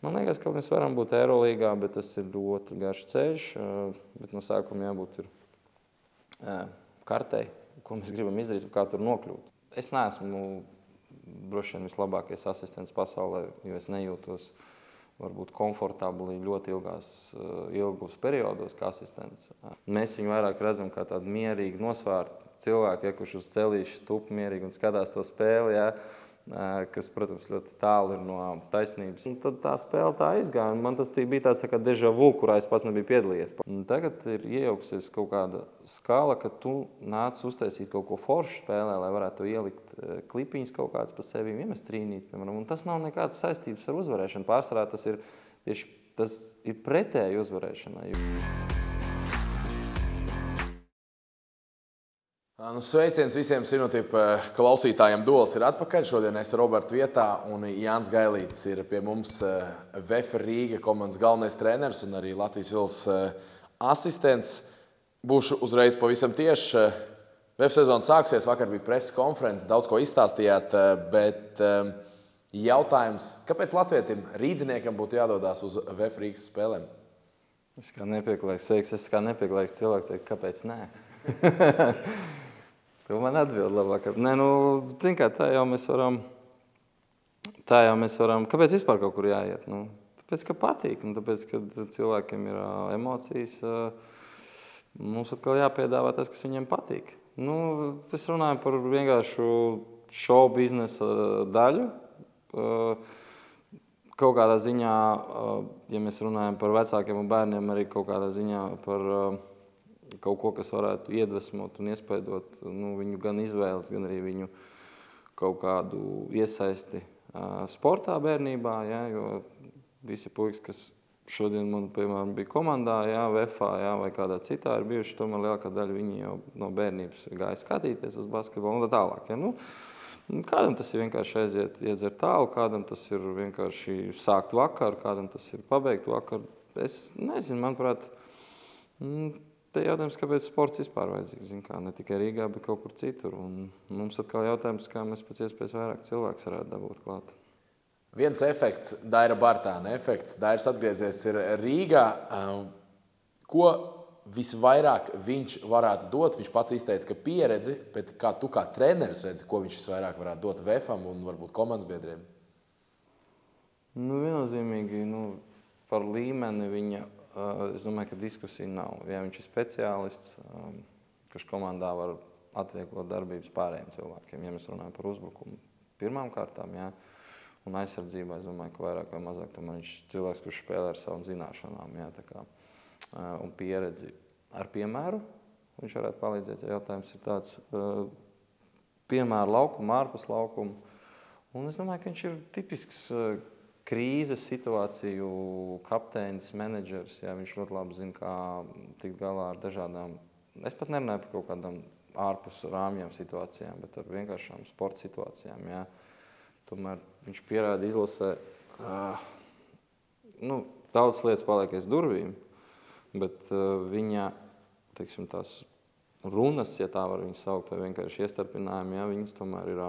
Man liekas, ka mēs varam būt Eirolīgā, bet tas ir ļoti garš ceļš. Bet no sākuma jābūt kartei, ko mēs gribam izdarīt un kā tur nokļūt. Es neesmu droši vien vislabākais asistents pasaulē, jo es nejūtos varbūt komfortabli ļoti ilgos periodos kā asistents. Mēs viņu vairāk redzam kā tādu mierīgu, nosvērtu cilvēku, kurš uz celīša tup mierīgi un skatās to spēli, kas, protams, ļoti tālu ir no taisnības. Un tad tā spēle tā izgāja, un man tas bija tāds kā déjà vu, kurā es pats nebiju piedalījies. Un tagad ir iejauksies kaut kāda skala, ka tu nāc uztaisīt kaut ko foršu spēlē, lai varētu ielikt klipiņus kaut kāds pa sevi, iemest trīnīt, piemēram. Un tas nav nekādas saistības ar uzvarēšanu. Pārsvarā tas ir pretēji uzvarēšanai. Sveiciens visiem Sinotipa klausītājiem. Duels ir atpakaļ. Šodien es Roberta vietā un Jānis Gailītis ir pie mums VF Rīga komandas galvenais treneris un arī Latvijas Vils asistents. Būšu uzreiz pavisam tieši. VF sezona sāksies, vakar bija preses konferences, daudz ko izstāstījāt, bet jautājums, kāpēc latvietim rīdziniekam būtu jādodās uz VF Rīgas spēlēm? Es kā nepieklājīgs cilvēks teikt, kāpēc nē? Tu man atbild labāk. Nē, zin kā, tā jau mēs varam, kāpēc vispār kaut kur jāiet? Tāpēc, ka patīk, un tāpēc, ka cilvēkiem ir emocijas, mums atkal jāpiedāvā tas, kas viņiem patīk. Es runāju par vienkāršu show biznesa daļu. Kaut kādā ziņā, ja mēs runājam par vecākiem un bērniem, arī kaut kādā ziņā par kaut ko, kas varētu iedvesmot un iespaidot viņu gan izvēles, gan arī viņu kaut kādu iesaisti sportā bērnībā, jo visi puikas, kas šodien man, piemēram, bija komandā, VF-ā, vai kādā citā ir bijuši, tomēr lielākā daļa viņi jau no bērnības gāja skatīties uz basketbolu un tā tālāk. Kādam tas ir vienkārši iedzert tālu, kādam tas ir vienkārši sākt vakaru, kādam tas ir pabeigt vakaru. Es nezinu, manuprāt, te jautājums, kāpēc sports vispār vajadzīgs, ne tikai Rīgā, bet kaut kur citur. Un mums atkal jautājums, kā mēs pēc iespējas vairāk cilvēks varētu dabūt klāt. Viens efekts, Daira Bartāna efekts. Dairs atgriezies ir Rīgā. Ko visvairāk viņš varētu dot? Viņš pats izteica, ka pieredzi, bet kā tu kā treneris redzi, ko viņš visvairāk varētu dot VF-am un varbūt komandas biedriem? Viennozīmīgi, par līmeni viņa, es domāju, ka diskusija nav. Ja viņš ir speciālists, kurš komandā var atvieglot darbības pārējiem cilvēkiem, ja mēs runājam par uzbrukumu pirmām kārtām, un aizsardzībā, es domāju, ka vairāk vai mazāk tomēr viņš ir cilvēks, kurš spēlē ar savām zināšanām, un pieredzi ar piemēru. Viņš varētu palīdzēt, ja jautājums ir tāds piemēru laukumu, ārpus laukumu. Un es domāju, ka viņš ir tipisks krīzes situāciju kapteinis, menedžers. Viņš ļoti labi zina, kā tikt galā ar dažādām, es pat nerunāju par kaut kādām ārpus rāmjām situācijām, bet ar vienkāršām sporta situācijām. Tomēr viņš pierāda izlasē, daudz lietas paliek aiz durvīm, bet viņa, teiksim, tās runas, ja tā var viņas saukt, vai vienkārši iestarpinājumi, viņas tomēr ir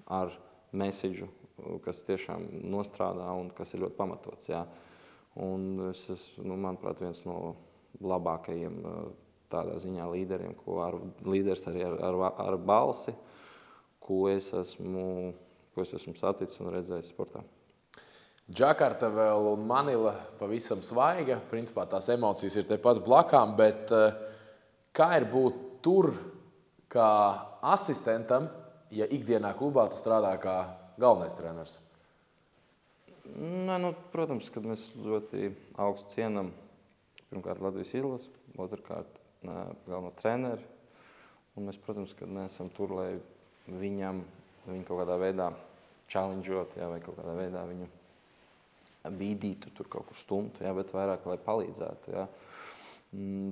ar mesidžu, kas tiešām nostrādā un kas ir ļoti pamatots. Un es esmu, manuprāt, viens no labākajiem tādā ziņā līderiem, līderis arī ar balsi, ko es esmu saticis un redzējis sportā. Džakarta vēl un Manila pavisam svaiga. Principā tās emocijas ir tepat blakām, bet kā ir būt tur kā asistentam, ja ikdienā klubā tu strādā kā galvenais treneris? Protams, kad mēs ļoti augstu cienam pirmkārt Latvijas izlasi, otrkārt galveno treneri. Un mēs, protams, kad neesam tur, lai viņu kaut kādā veidā challengeot, vai kaut kādā veidā viņu bīdītu, tur kaut kur stumtu, bet vairāk, lai palīdzētu.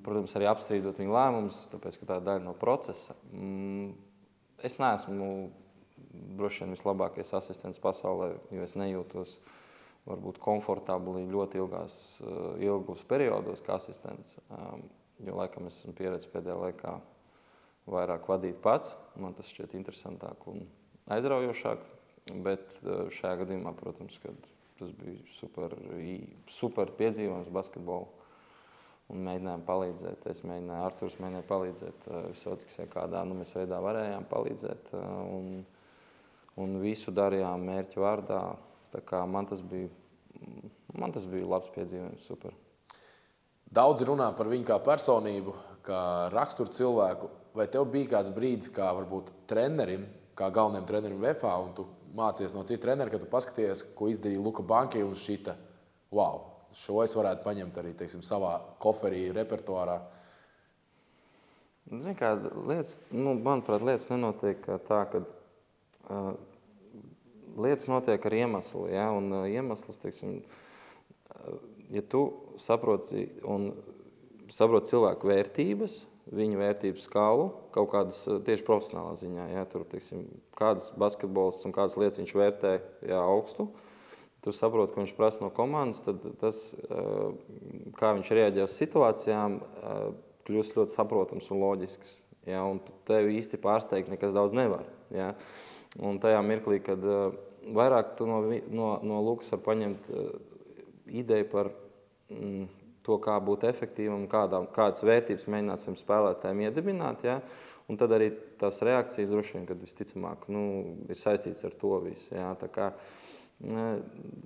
Protams, arī apstrīdot viņu lēmumus, tāpēc, ka tā ir daļa no procesa. Es neesmu droši vien vislabākais asistents pasaulē, jo es nejūtos varbūt komfortabli ļoti ilgos periodos kā asistents, jo laikam es esmu pieredzējis pēdējā laikā vairāk vadīt pats. Man tas šķiet interesantāk un aizraujošāk, bet šajā gadījumā, protams, kad tas bija super piedzīvojums basketbolu. Un mēģinājām palīdzēt. Arturs mēģināja palīdzēt Visockis, ja kādā mēs veidā varējām palīdzēt. Un visu darījām mērķu vārdā. Tā kā man tas bija labs piedzīvojums, super. Daudzi runā par viņu kā personību, kā raksturu cilvēku. Vai tev bija kāds brīdis, kā varbūt trenerim, kā galvenajam trenerim VFA, un tu mācies no citu treneru, kad tu paskaties, ko izdarīja Luka Banki un šita, wow, šo es varētu paņemt arī, teiksim, savā koferī, repertuārā? Zini, kā lietas, manuprāt, lietas nenotiek tā, ka lietas notiek ar iemeslu, ja, un iemesls, teiksim, ja tu saproti cilvēku vērtības, viņu vērtību skalu, kaut kādas tieši profesionālā ziņā, ja, tur, teiksim, kādas basketbols un kādas lietas viņš vērtē, ja, augstu, tu saproti, ko viņš prasa no komandas, tad tas, kā viņš reaģē uz situācijām, kļūst ļoti saprotams un loģisks, ja, un tevi īsti pārsteigt nekas daudz nevar, ja. Un tajā mirklī, kad vairāk tu no Lukas var paņemt ideju par to, kā būt efektīvam, kādas vērtības mēģināsim spēlētājiem iedibināt, ja? Un tad arī tās reakcijas droši vien, kad visticamāk, ir saistīts ar to visu. Ja? Tā kā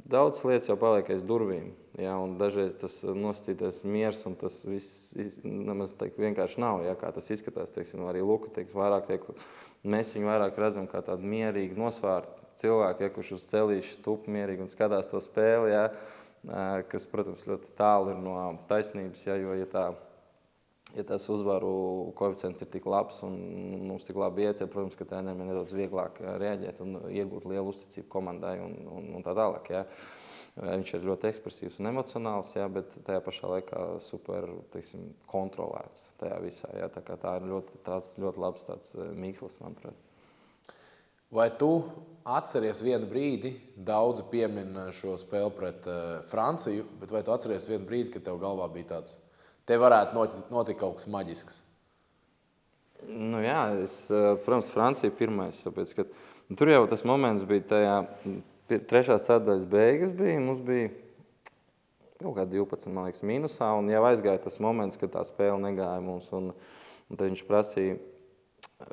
daudz lietas jau paliek aiz durvīm, ja? Un dažreiz tas nosacītais miers un tas viss nemaz vienkārši nav, ja? Kā tas izskatās, teiksim, arī Luka, mēs viņu vairāk redzam kā tādu mierīgu nosvārtu cilvēku, ja? Kurš uz celīšu stup mierīgi un skatās to spēli, ja? Kas, protams, ļoti tālu ir no taisnības, ja, jo, ja tas uzvaru koeficients ir tik labs un mums tik labi iet, ja, protams, ka treneriem ir nedaudz vieglāk reaģēt un iegūt lielu uzticību komandai un tā tālāk. Ja. Viņš ir ļoti ekspresīvs un emocionāls, ja, bet tajā pašā laikā super, teiksim, kontrolēts tajā visā. Ja. Tā ir ļoti labs tāds mīkslis, manuprāt. Vai tu atceries vienu brīdi, daudzi piemin šo spēli pret Franciju, bet vai tu atceries vienu brīdi, kad tev galvā bija tāds, te varētu notikt kaut kas maģisks? Jā, protams, Francija pirmais, tāpēc, ka tur jau tas moments bija tajā trešās ceturtdaļas beigas bija, mums bija kaut kā 12, man liekas, mīnusā, un jau aizgāja tas moments, kad tā spēle negāja mums, un tad viņš prasīja,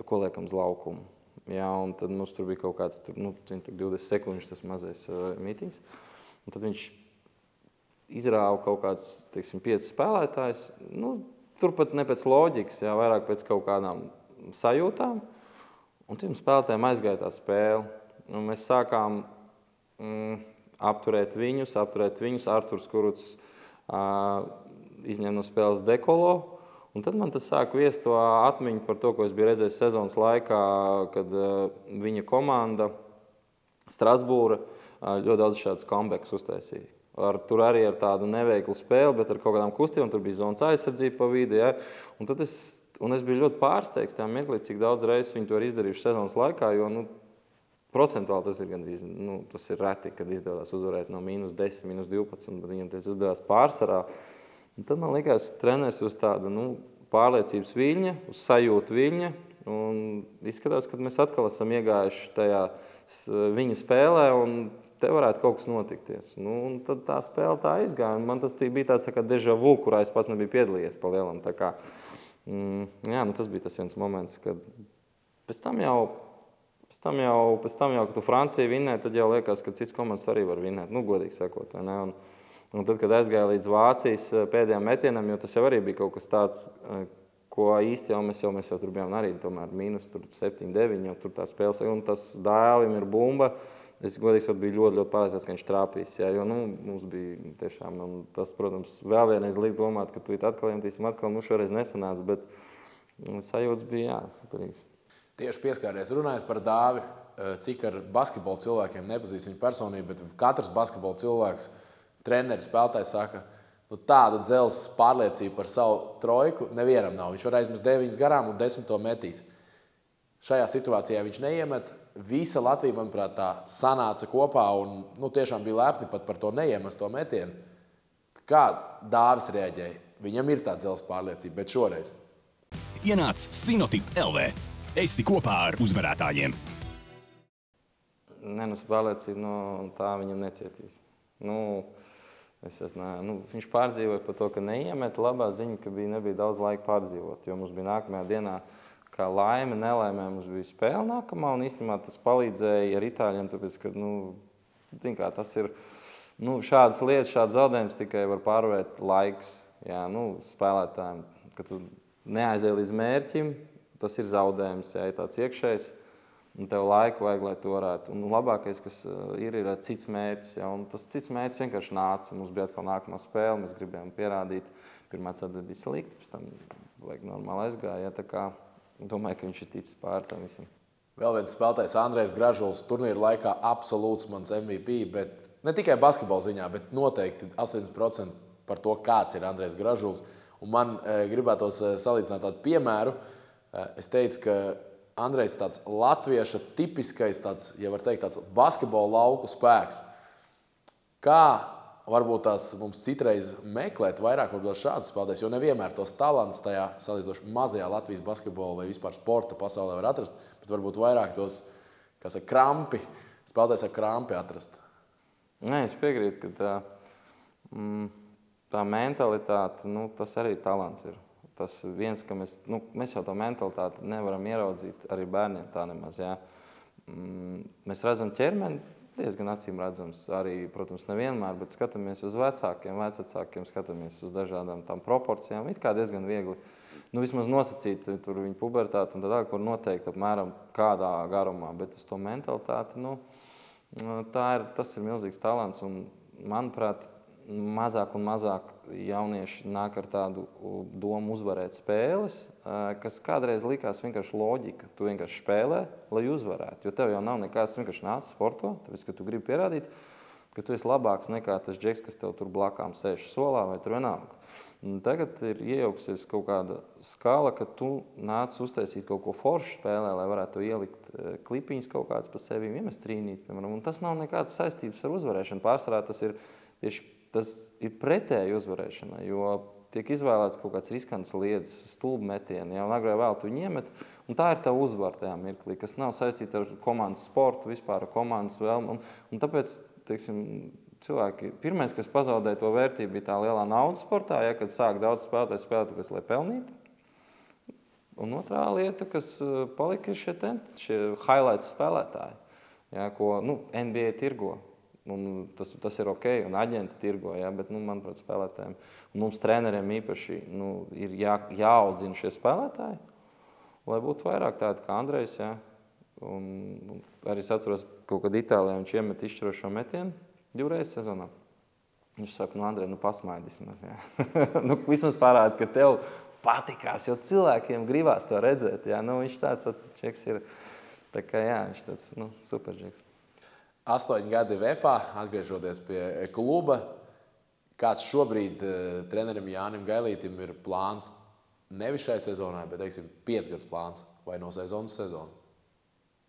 ko liekam uz laukumu. Jā, un tad mums tur bija kaut kāds 20 sekundžu tas mazais mītings. Un tad viņš izrāva kaut kāds, teiksim, 5 spēlētājs. Turpat ne pēc loģikas, jā, vairāk pēc kaut kādām sajūtām. Un tiem spēlētājiem aizgāja tā spēle. Un mēs sākām apturēt viņus. Arturs Kurucs izņem no spēles Dekolo. Un tad man tas sāk viest to atmiņu par to, ko es biju redzējis sezonas laikā, kad viņa komanda Strasbūra ļoti daudz šādus comebacks uztaisīja. Tur arī ar tādu neveiklu spēli, bet ar kaut kādām kustībām, tur bija zonas aizsardzība pa vidu. Ja? Un es biju ļoti pārsteigts tajā mirklī, cik daudz reizes viņi to ir izdarījuši sezonas laikā, jo procentuāli tas ir gandrīz, tas ir reti, kad izdevās uzvarēt no -10, -12, bet viņam tas izdevās pārsvarā. Un tad man likās, treneris uz tāda pārliecības viļņa, uz sajūtu viļņa, un izskatās, ka mēs atkal esam iegājuši tajā viņa spēlē, un te varētu kaut kas notikties. Un tad tā spēle tā izgāja, un man tas bija tāds kā déjà vu, kurā es pats nebiju piedalījies pa lielam. Tā kā, tas bija tas viens moments, kad pēc tam jau, kad tu Franciju vinnē, tad jau liekas, ka cits komandas arī var vinnēt, godīgi sakot, vai ne? Un tad, kad aizgāja līdz Vācijas pēdējām metienam, jo tas jau arī bija kaut kas tāds, ko īsti jau mēs tur bijām arī tomēr -7, -9, jau tur tā spēles, un tas Dālim ir bumba. Es godīgi sakot biju ļoti pārliecināts, ka viņš trāpīs, ja, jo mums bija tiešām, un tas, protams, vēl vienreiz liek domāt, ka tu atkal iemetīsim, šoreiz nesanāca, bet sajūtas bija, jā, superīgs. Tieši pieskāries runājot par Dāvi, cik ar basketbolu cilvēkiem nepazīst viņu personību, bet katrs basketbolu cilvēks, treneris, spēlētājs saka, tādu dzelzs pārliecību par savu trojku nevienam nav. Viņš var aizmest 9 garām un 10 to metīs. Šajā situācijā viņš neiemet. Visa Latvija, manuprāt, tā sanāca kopā un tiešām bija lepni pat par to neiemesto metienu. Kā Dāvis reaģēja? Viņam ir tā dzelzs pārliecība, bet šoreiz. Ienāc Sinotip LV. Esi kopā ar uzvarētājiem. Pārliecība tā viņam necietīs. Viņš pārdzīvoja par to, ka neiemet. Labā ziņa, ka nebija daudz laika pārdzīvot, jo mums bija nākamajā dienā, kā laime, nelaimē, mums bija spēle nākamā, un īstenībā tas palīdzēja ar itāļiem, tāpēc, ka, tas ir, šādas lietas, šādas zaudējumus tikai var pārvarēt laiks, spēlētājiem, ka tu neaizēji līdz mērķim, tas ir zaudējums, ja tāds iekšējs, un tev laiku vajag, lai to varētu. Un labākais, kas ir cits mērķis, un tas cits mērķis vienkārši nāca, mums bija atkal nākamā spēle, mēs gribējām pierādīt, pirmā ceturtdiena bija slikta, pēc tam vajag normāli aizgāja, tā kā domāju, ka viņš ir ticis pār tam visam. Vēl viens spēlētājs Andrejs Gražuls turnīra laikā absolūts mans MVP, bet ne tikai basketbola ziņā, bet noteikti 80% par to, kāds ir Andrejs Gražuls. Un man gribētos salīdzināt tādu piemēru. Es teicu, ka Andrejs tāds latvieša tipiskais, tāds, ja var teikt, tāds basketbola lauku spēks. Kā varbūt tās mums citreiz meklēt vairāk šādas spēlētājs, jo nevienmēr tos talantus tajā salīdzinoši mazajā Latvijas basketbola vai vispār sporta pasaulē var atrast, bet varbūt vairāk tos, kā saka, krampi, spēlētājs ar krampi atrast. Nē, es piekrītu, ka tā mentalitāte, tas arī talants ir. Tas viens, ka mēs jau to mentalitāti nevaram ieraudzīt arī bērniem tā nemaz, jā. Mēs redzam ķermeni, diezgan acīm redzams arī, protams, nevienmēr, bet skatāmies uz vecākiem, skatāmies uz dažādām tām proporcijām, it kā diezgan viegli, vismaz nosacīt tur viņu pubertāti un tādā, kur noteikti apmēram kādā garumā, bet uz to mentalitāti, tas ir milzīgs talants un, manuprāt, mazāk un mazāk jaunieši nāk ar tādu domu uzvarēt spēles, kas kādreiz likās vienkārši loģika. Tu vienkārši spēlē, lai uzvarētu, jo tev jau nav nekāds, tu vienkārši nāc sporto, tāpēc, ka tu gribi pierādīt, ka tu esi labāks nekā tas džeks, kas tev tur blakām sēž solā vai tur vienalga. Tagad ir iejauksies kaut kāda skala, ka tu nāc uztaisīt kaut ko foršu spēlē, lai varētu ielikt klipiņus kaut kāds pa sevi, iemest trīnīt, piemēram, un tas nav nekādas saistības ar uzvarēšanu. Pārsvarā tas ir tieši tas ir pretēji uzvarēšanai, jo tiek izvēlēts kaut kāds riskants lietas, stulbi metieni, un agrāk vēl tu viņu iemet, un tā ir tā uzvara tajā mirklī, kas nav saistīta ar komandas sportu, vispār ar komandas vēlmu, un tāpēc, teiksim, cilvēki, pirmais, kas pazaudēja to vērtību, bija tā lielā naudas sportā, kad sāk daudz spēlētāji spēlēt, tāpēc, lai pelnītu. Un otrā lieta, kas palika, ir šie highlights spēlētāji, ko NBA tirgo. Un tas ir ok, un aģenti tirgo, bet, manuprāt, spēlētājiem, un mums treneriem īpaši ir jāaudzina šie spēlētāji, lai būtu vairāk tādi kā Andrejs, un arī es atceros, kaut kad Itālijā viņš iemet izšķirošo metienu 2 reizes sezonā. Viņš saka, Andrej, pasmaidi vismaz, vismaz parāda, ka tev patikās, jo cilvēkiem gribās to redzēt, viņš tāds čeks ir, tā kā, viņš tāds, super čeks. 8 gadi VFA, atgriežoties pie kluba. Kāds šobrīd trenerim Jānim Gailītim ir plāns nevis šai sezonai, bet, 5 gadus plāns vai no sezonas sezonu?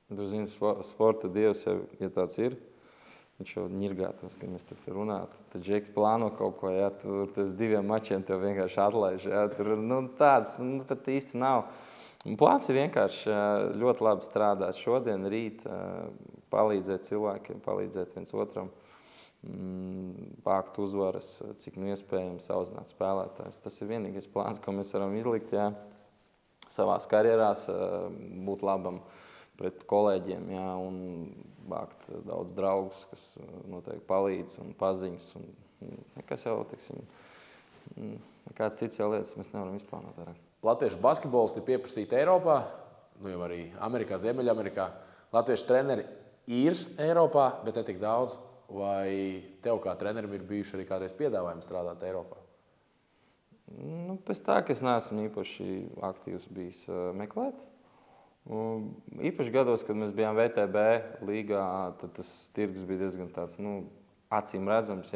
Tu zini, sporta dievs, ja tāds ir, viņš jau ņirgātos, ka mēs tur runātu. Tad džeki plāno kaut ko, tur uz 2 mačiem tev vienkārši atlaiž, tur tāds, pat īsti nav. Plāns ir vienkārši ļoti labi strādāt šodien, rīt, palīdzēt cilvēkiem, palīdzēt viens otram, vākt uzvaras, cik iespējams auzināt spēlētājs. Tas ir vienīgais plāns, ko mēs varam izlikt, savās karjerās, būt labam pret kolēģiem, un vākt daudz draugus, kas noteikti palīdz un paziņas. Un nekas jau, nekāds cits jau lietas mēs nevaram izplānot vairāk. Latviešu basketbolisti ir pieprasīti Eiropā, jau arī Amerikā, Ziemeļamerikā. Latviešu treneri ir Eiropā, bet ne tik daudz. Vai tev kā trenerim ir bijuši arī kādreiz piedāvājumi strādāt Eiropā? Pēc tā, ka es neesmu īpaši aktīvs bijis meklēt. Īpaši gados, kad mēs bijām VTB līgā, tad tas tirgus bija diezgan tāds, acīm redzams,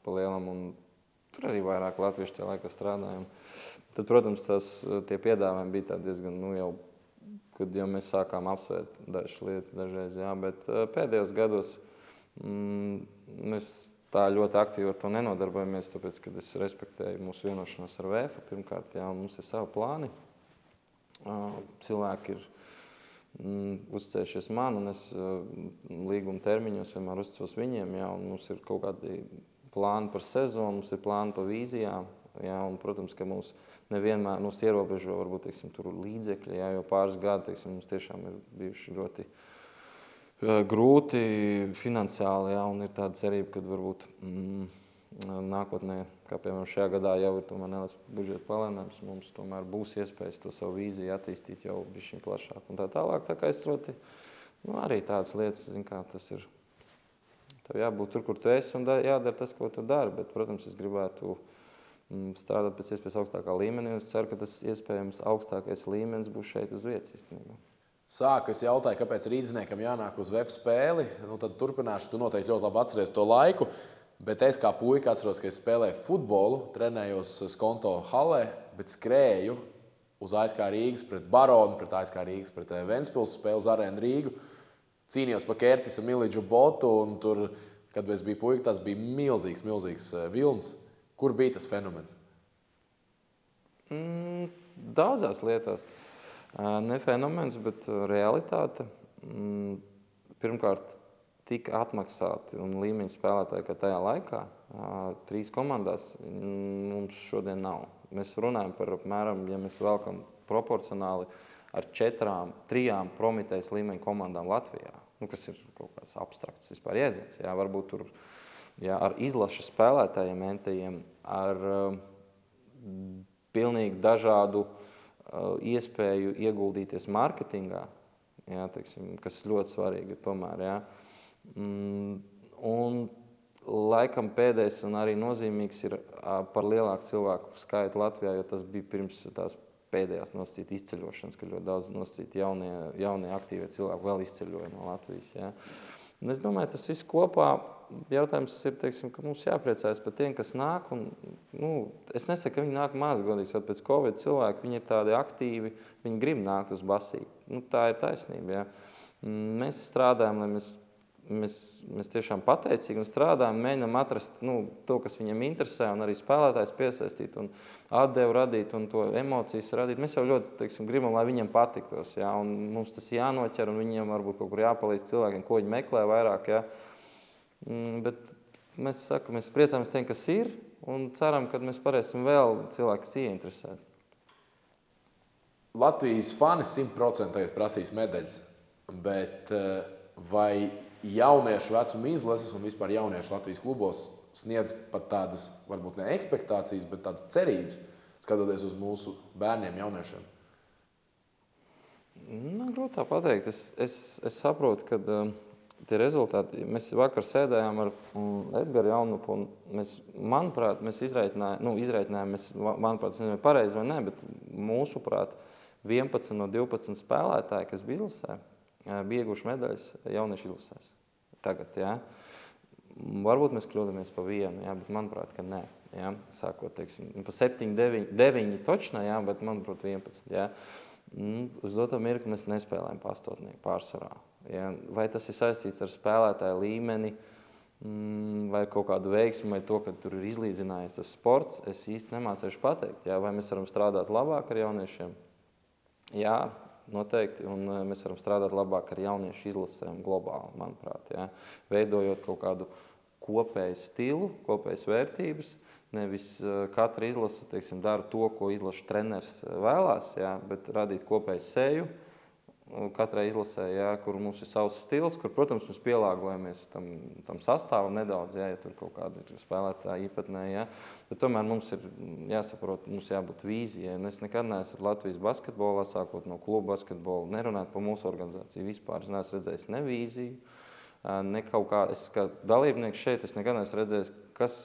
pa lielam, un tur arī vairāk latviešu tajā laikā strādājām. Tad, protams, tie piedāvājumi bija tādi diezgan, kad jau mēs sākām apsvērt dažas lietas dažreiz, bet pēdējos gados mēs tā ļoti aktīvi ar to nenodarbojamies, tāpēc, kad es respektēju mūsu vienošanos ar VF. Pirmkārt, mums ir savi plāni. Cilvēki ir uzticējušies man, un es līguma termiņos vienmēr uzticos viņiem, jā, un mums ir kaut kādi plāni par sezonu, mums ir plāni par vīzijām, jā, un, protams, ka mums nevienmēr ierobežo, varbūt, teiksim, tur līdzekļi, jā, jo pāris gadi, teiksim, mums tiešām ir bijuši ļoti grūti finansiāli, jā, un ir tāda cerība, ka varbūt nākotnē, kā piemēram šajā gadā jau ir tomēr neliels budžeta palielinājums, mums tomēr būs iespējas to savu vīziju attīstīt jau bišķiņ plašāk un tā tālāk. Tā kā es ļoti, arī tādas lietas, zin kā tas ir, tev jābūt tur, kur tu esi un jādara tas, ko tu dari, bet, protams, es gribētu strādāt pēc iespējas augstākā līmenī, un es ceru, ka tas iespējams augstākais līmenis būs šeit uz vietas īstenībā. Sāku es jautāju, kāpēc rīdzniekam jānāk uz VF spēli, tad turpināšu, tu noteikti ļoti labi atceries to laiku, bet es kā puika atceros, ka es spēlēju futbolu, trenējos Skonto halē, bet skrēju uz ASK Rīgas pret Baronu, pret ASK Rīgas pret Ventspils spēli uz Arēnu Rīgu, cīnījos pa Kertisa Milidžu botu, un tur, kad es biju puika, tas bija milzīgs vilns. Kur bija tas fenomens? Daudzās lietās. Ne fenomens, bet realitāte. Pirmkārt, tika atmaksāti un līmeņa spēlētāji, ka tajā laikā 3 komandās mums šodien nav. Mēs runājam par apmēram, ja mēs velkam proporcionāli ar 3 Prometējas līmeņa komandām Latvijā, kas ir kaut kāds abstrakts vispār jēdziens. Jā, varbūt tur ar izlašu spēlētājiem, entajiem, ar pilnīgi dažādu iespēju ieguldīties mārketingā, jā, teiksim, kas ļoti svarīgi ir tomēr. Jā. Un laikam pēdējais un arī nozīmīgs ir par lielāku cilvēku skaitu Latvijā, jo tas bija pirms tās pēdējās nosacīta izceļošanas, ka ļoti daudz nosacīti jaunie aktīvie cilvēki vēl izceļoja no Latvijas. Jā. Un es domāju, tas viss kopā jautājums ir, teiksim, ka mums jāpriecājas par tiem, kas nāk. Un, es nesaku, ka viņi nāk maz, godīgi, pēc Covid cilvēki, viņi ir tādi aktīvi, viņi grib nākt uz basīti. Tā ir taisnība. Jā. Mēs strādājam, lai mēs tiešām pateicīgi un strādājam, mēģinam atrast to, kas viņiem interesē, un arī spēlētājs piesaistīt un atdevu radīt un to emocijas radīt. Mēs jau ļoti, teiksim, gribam, lai viņiem patiktos, jā, un mums tas jānoķer, un viņiem varbūt kaut kur jāpalīdz cilvēkiem, ko viņi meklē vairāk, jā. Bet mēs priecājamies tiem, kas ir, un ceram, ka mēs varēsim vēl cilvēkus ieinteresēt. Latvijas fani 100% prasīs medaļas, bet vai jauniešu vecuma izlases un vispār jauniešu Latvijas klubos sniedz pat tādas, varbūt ne ekspektācijas, bet tādas cerības, skatoties uz mūsu bērniem, jauniešiem? Grūti tā pateikt. Es saprotu, ka tie rezultāti, mēs vakar sēdējām ar Edgaru Jaunupu, un manuprāt, mēs izreikinājām, manuprāt, tas nezinu pareizi vai ne, bet mūsuprāt 11 no 12 spēlētāji, kas bija izlasē, bija ieguvuši medaļas jauniešu izlasēs. Tagad, jā. Varbūt mēs kļūdamies pa vienu, jā, bet manuprāt, ka nē. Jā. Sākot, teiksim, pa 7, 9 točnā, jā, bet manuprāt 11. Jā. Uz doto mirkli mēs nespēlējam pastotnieku pārsvarā. Jā. Vai tas ir saistīts ar spēlētāju līmeni, vai kaut kādu veiksmu, vai to, ka tur ir izlīdzinājies tas sports, es īsti nemācēšu pateikt. Jā. Vai mēs varam strādāt labāk ar jauniešiem? Jā. Noteikti, un mēs varam strādāt labāk ar jauniešu izlasēm globāli, manuprāt, jā. Veidojot kaut kādu kopēju stilu, kopējas vērtības, nevis katra izlase, teiksim, dara to, ko izlaša treneris vēlās, jā, bet radīt kopēju seju katrai izlasē, jā, kur mums ir savs stils, kur, protams, mēs pielāgojamies tam sastāvam nedaudz, jā, ja tur kaut kāda ir spēlētāja īpatnē, jā. Bet tomēr mums ir jāsaprot, mums jābūt vīzijai. Es nekad neesmu Latvijas basketbolā, sākot no kluba basketbola, nerunāt par mūsu organizāciju vispār. Es neesmu redzējis ne vīziju, ne kaut kā, es kā dalībnieks šeit, es nekad neesmu redzējis,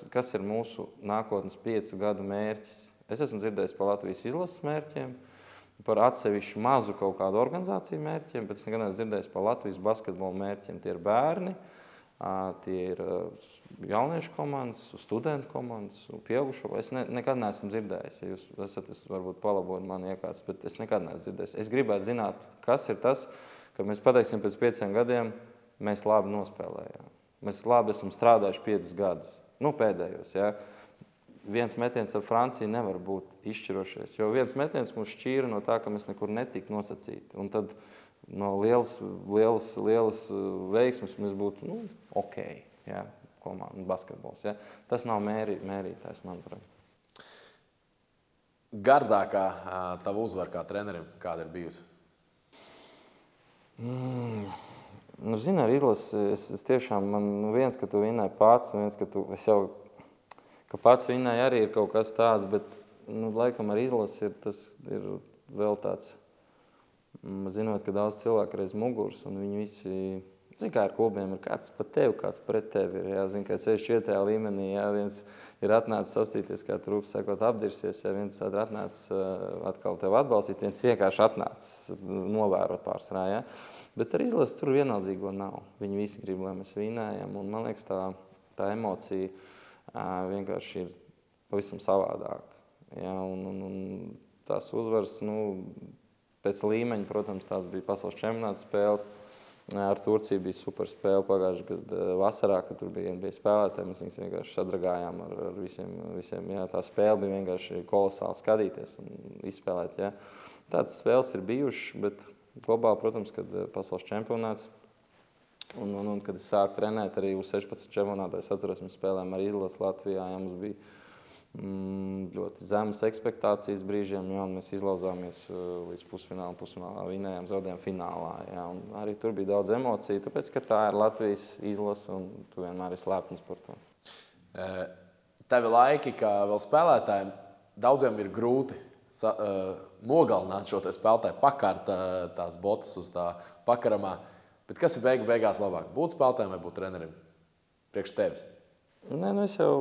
kas ir mūsu nākotnes 5 gadu mērķis. Es esmu dzirdējis par Latvijas izlases mērķiem, par atsevišķu mazu kaut kādu organizāciju mērķiem, bet es nekad neesmu dzirdējis par Latvijas basketbola mērķiem. Tie ir bērni, tie ir jauniešu komandas, studentu komandas, pieaugušo. Es nekad neesmu dzirdējis, ja jūs esat, varbūt palabojat mani iekāds, bet es nekad neesmu dzirdējis. Es gribētu zināt, kas ir tas, ka mēs pateiksim pēc 5 gadiem, mēs labi nospēlējām. Mēs labi esam strādājuši 5 gadus, pēdējos, jā. Viens metiens ar Franciju nevar būt izšķirošies, jo viens metiens mūs šķīra no tā, ka mēs nekur netika nosacīti. Un tad no lielas veiksmes mēs būtu ok, jā, komanda basketbols. Jā. Tas nav mērītājs, manuprāt. Gardākā tava uzvara kā trenerim, kāda ir bijusi? Zini, ar izlasi, es tiešām, viens, ka tu vinēji pats, viens, ka pats vinēji arī ir kaut kas tāds, bet, laikam ar izlasi tas ir vēl tāds, zinot, ka daudz cilvēku reiz muguras, un viņi visi, zini, kā ar klubiem ir kāds pa tevi, kāds pret tevi ir, jā, zini, kā 64. līmenī, jā, viens ir atnācis savstīties, kā trūps, sakot, apdirsies, jā, viens ir atnācis atkal tevi atbalstīt, viens vienkārši atnācis novērot pārsvarā, jā. Bet ar izlasi tur vienaldzīgo nav. Viņi visi grib, lai mēs vinējam, un man liekas, tā emocija vienkārši ir pavisam savādāk. Ja, un tās uzvaras, pēc līmeņa, protams, tās bija pasaules čempionāta spēles. Ar Turciju bija super spēle pagājušajā gadā vasarā, kad tur bija spēlētāji. Mēs viņus vienkārši sadragājām ar visiem. Jā, tā spēle bija vienkārši kolosāli skatīties un izspēlēt. Jā. Tādas spēles ir bijušas, bet globāli, protams, kad pasaules čempionāts un kad es sāku trenēt arī uz 16 čempionātā, es atceros, mēs spēlējām ar izlasi Latvijā, ja mums bija ļoti zemas ekspektācijas brīžiem, ja, un mēs izlauzāmies līdz pusfinālā vinējām, zaudējām finālā, ja, un arī tur bija daudz emociju, tāpēc, ka tā ir Latvijas izlase un tu vienmēr esi lepns par to. Tevi laiki, kā vēl spēlētājiem, daudziem ir grūti nogalināt šo spēlētāju, pakart tās botas uz tā pakaramā. Bet kas ir beigās labāk? Būt spēlētājiem vai būt trenerim? Priekš tevis? Nē, es jau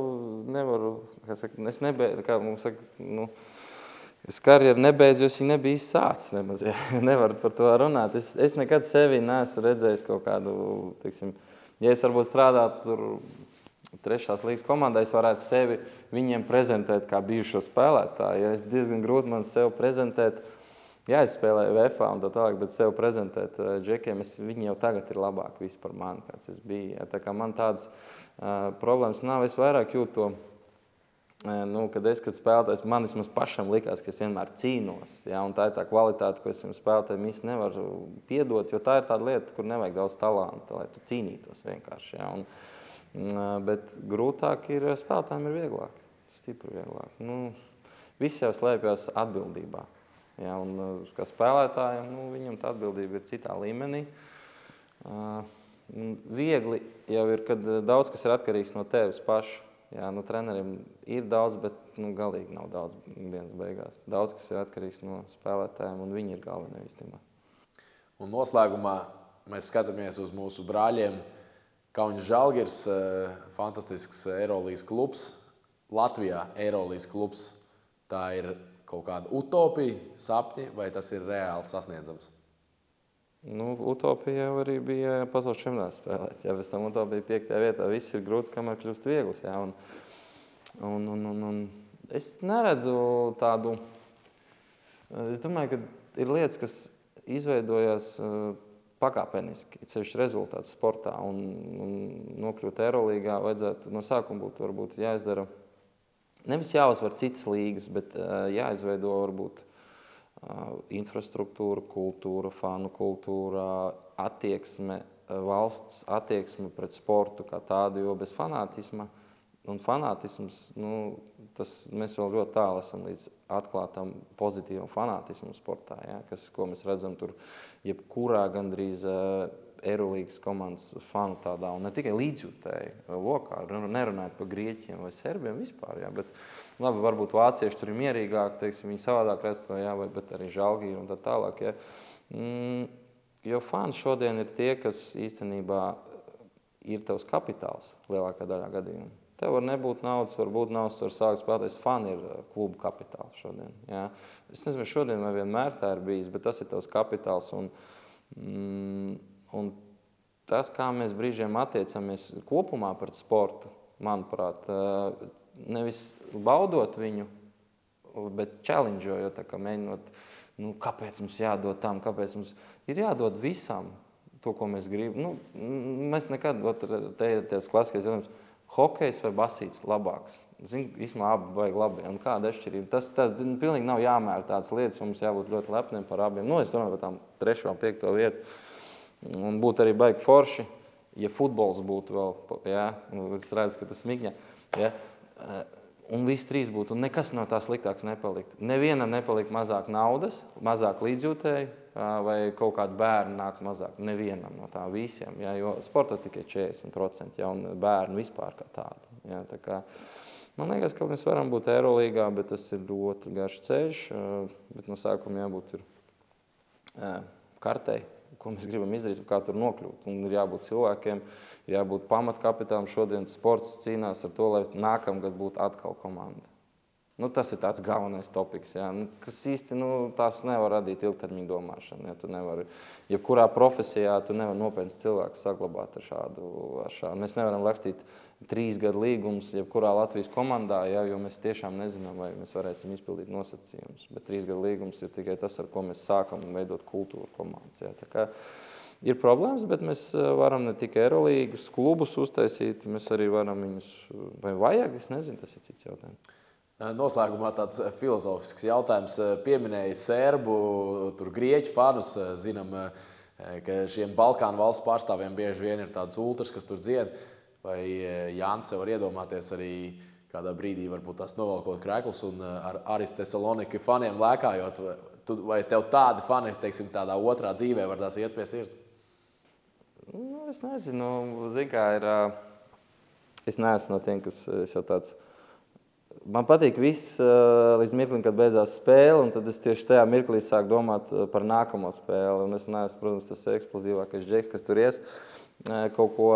nevaru, kā mums saka, es karjeru nebeidzu, jo es viņu nebiju izsācis nemaz. Ja. Nevaru par to runāt. Es nekad sevi neesmu redzējis kaut kādu, teiksim, ja es varbūt strādātu tur 3. līgas komandā, es varētu sevi viņiem prezentēt kā bijušo spēlētāju. Ja es diezgan grūti man sev prezentēt, jā, es spēlēju VFA un tā tālāk, bet sev prezentēt džekiem, viņi jau tagad ir labāki visi par mani, kāds es biju. Ja. Tā kā man tādas problēmas nav, es vairāk jūtu to, kad spēlētājs, man vismaz pašam likās, ka es vienmēr cīnos. Ja, un tā ir tā kvalitāte, ko es spēlētājiem īsti nevaru piedot, jo tā ir tāda lieta, kur nevajag daudz talanta, lai tu cīnītos vienkārši. Ja, bet grūtāk ir spēlētājiem ir vieglāk, stipri vieglāk. Visi jau slēpjas atbildībā. Ja, un kā spēlētājiem, viņam tā atbildība ir citā līmenī. Viegli jau ir, kad daudz kas ir atkarīgs no tevis paša. Ja, treneriem ir daudz, bet galīgi nav daudz dienas beigās. Daudz kas ir atkarīgs no spēlētājiem, un viņi ir galvenie īstenībā. Un noslēgumā mēs skatāmies uz mūsu brāļiem. Kauņas Žalgiris, fantastisks Eirolīgas klubs. Latvijā Eirolīgas klubs. Tā ir kaut kāda utopija, sapņi, vai tas ir reāli sasniedzams? Utopija jau arī bija pasaules čempionātā spēlēt. Ja, pēc tam utopija 5. vietā. Viss ir grūts, kamēr kļūst viegls. Ja, un es neredzu tādu... Es domāju, ka ir lietas, kas izveidojās pakāpeniski, ceļš rezultāts sportā, un nokļūt Eirolīgā vajadzētu no sākuma būt varbūt jāizdara, nevis jāuzvar citas līgas, bet jāizveido varbūt infrastruktūra, kultūra, fanu kultūra, attieksme, valsts attieksme pret sportu kā tādu, jo bez fanātisma, un fanātisms, mēs vēl ļoti tālu esam līdz atklātam pozitīvam fanātismu sportā, ja, ko mēs redzam tur jebkurā gandrīz Eirolīgas komandas fanu tādā, un ne tikai līdzjūtēji lokā, nerunājot par Grieķiem vai Serbiem vispār, ja, bet labi, varbūt vācieši tur ir mierīgāk, teiksim, viņi savādāk redz to, ja, bet arī Žalgiri un tā tālāk. Ja. Jo fani šodien ir tie, kas īstenībā ir tavs kapitāls lielākā daļā gadījumā. Tev var nebūt naudas, var būt naudas, tu var sākt spēlēties. Fani ir klubu kapitāls šodien. Ja. Es nezinu, šodien vai vienmēr tā ir bijis, bet tas ir tavs kapitāls. Un tas, kā mēs brīžiem attiecamies kopumā pret sportu, manuprāt, nevis baudot viņu, bet challengeojot, mēģinot, kāpēc mums jādod tam, kāpēc mums ir jādod visam to, ko mēs gribam. Mēs nekad, te ir tās klasiskais jautājums, hokejs vai basīts labāks. Zinu, īstenībā abi vajag labi. Un kāda atšķirība? Tas pilnīgi nav jāmēra tādas lietas, mums jābūt ļoti lepniem par abiem. Nu, es domāju par tām 3. un 5. vietu. Un būtu arī baigi forši, ja futbols būtu vēl, ja? Es redzu, ka tas smigņa, ja? Un visi 3 būtu, un nekas no tā sliktāks nepalikt. Nevienam nepalikt mazāk naudas, mazāk līdzjūtēji, vai kaut kādi bērni nāk mazāk. Nevienam no tā visiem, ja? Jo sportā tikai 40%, ja? Un bērni vispār kā tādi. Ja? Tā kā, man liekas, ka mēs varam būt Eirolīgā, bet tas ir ļoti garš ceļš, bet no sākuma jābūt ir kartei, ko mēs gribam izdarīt, kā tur nokļūt. Un ir jābūt cilvēkiem, ir jābūt pamatkapitālam. Šodien sports cīnās ar to, lai nākamgad būtu atkal komanda. Nu, tas ir tāds galvenais topiks, ja? Kas īsti tās nevar radīt ilgtermiņa domāšanu. Ja? Tu nevari, jebkurā profesijā tu nevar nopietns cilvēks saglabāt ar šādu. Mēs nevaram rakstīt 3 gadu līgumus jebkurā Latvijas komandā, ja? Jo mēs tiešām nezinām, vai mēs varēsim izpildīt nosacījumus. Bet 3 gadu līgums ir tikai tas, ar ko mēs sākam veidot kultūru komandas. Ja? Tā kā ir problēmas, bet mēs varam ne tikai Eirolīgas klubus uztaisīt, mēs arī varam viņus, vai vajag, es nezinu, tas ir cits jautājums. Noslēgumā tāds filozofisks jautājums. Pieminēja serbu, tur grieķu fanus. Zinām, ka šiem Balkānu valsts pārstāvjiem bieži vien ir tāds ultras, kas tur dzied. Vai Jānis var iedomāties arī kādā brīdī varbūt tās novelkot krēklus un ar Aris Thessaloniki faniem lēkājot? Vai tev tādi fani, teiksim, tādā otrā dzīvē var tās iet pie sirds? Nu, es nezinu, zin kā ir, es neesmu no tiem, kas jau tāds. Man patīk viss līdz mirklim, kad beidzās spēle, un tad es tieši tajā mirklī sāku domāt par nākamo spēli. Un es neesmu, protams, tas eksplozīvākais džeks, kas tur ies kaut ko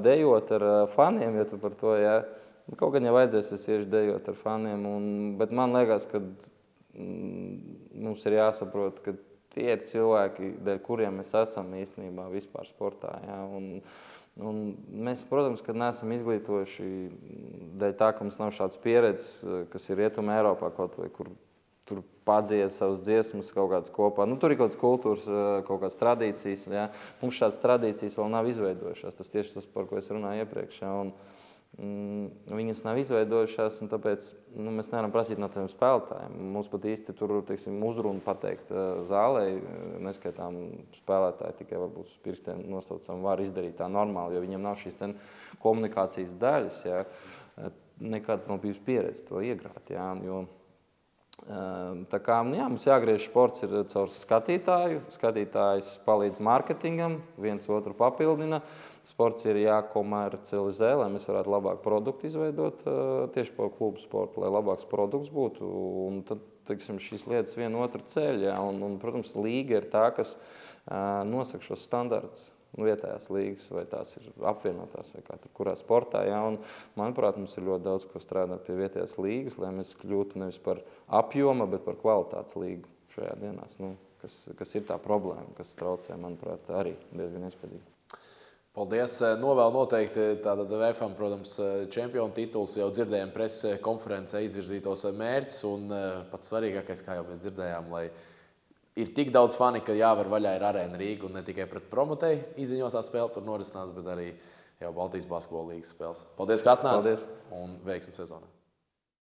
dejot ar faniem, ja tu par to, ja. Kaut gan ja vajadzēs, es iešu dejot ar faniem, bet man liekas, ka mums ir jāsaprot, ka tie ir cilvēki, dēļ kuriem mēs esam īstenībā vispār sportā, ja. Un mēs, protams, kad neesam izglītojuši dēļ tā, ka mums nav šāds pieredzes, kas ir Rietumē Eiropā kaut vai, kur tur padzied savas dziesmas kaut kādas kopā. Nu, tur ir kaut kādas kultūras, kaut kādas tradīcijas. Ja? Mums šādas tradīcijas vēl nav izveidojušās. Tas tieši tas, par ko es runāju iepriekš. Ja? Viņas nav izveidojušās, un tāpēc mēs nevaram prasīt no tiem spēlētājiem. Mums pat īsti tur, teiksim, uzrunu pateikt zālē, neskaitām spēlētāji, tikai varbūt uz pirkstiem nosaucam, var izdarīt tā normāli, jo viņiem nav šīs komunikācijas daļas, ja? Nekad nav bijusi pieredze to iegrāt, ja? Jo tā kā, jā, mums jāgriež sports ir caur skatītāju, skatītājs palīdz mārketingam, viens otru papildina. Sports ir jākomercializē, lai mēs varētu labāk produktu izveidot tieši par klubu sportu, lai labāks produkts būtu. Un tad, teiksim, šīs lietas viena otru ceļ, ja? Un, protams, līga ir tā, kas nosaka šos standartus. Vietējās līgas, vai tās ir apvienotās, vai kā tur kurā sportā. Ja? Un, manuprāt, mums ir ļoti daudz, ko strādāt pie vietējās līgas, lai mēs kļūtu nevis par apjoma, bet par kvalitātes līgu šajā dienās. Kas ir tā problēma, kas traucē, manuprāt, arī diezgan iespējīgi. Paldies. Novēl noteikti tātad VFam, protams, čempionu tituls, jau dzirdējām preses konferencē izvirzītos mērķus, un pats svarīgākais, kā jau mēs dzirdējām, lai ir tik daudz fani, ka jāvar vaļā ir Arēna Rīga, un ne tikai pret Promotei izziņotā spēle tur norisinās, bet arī jau Baltijas basketbola līgas spēles. Paldies, ka atnāci, un veiksmi sezonā.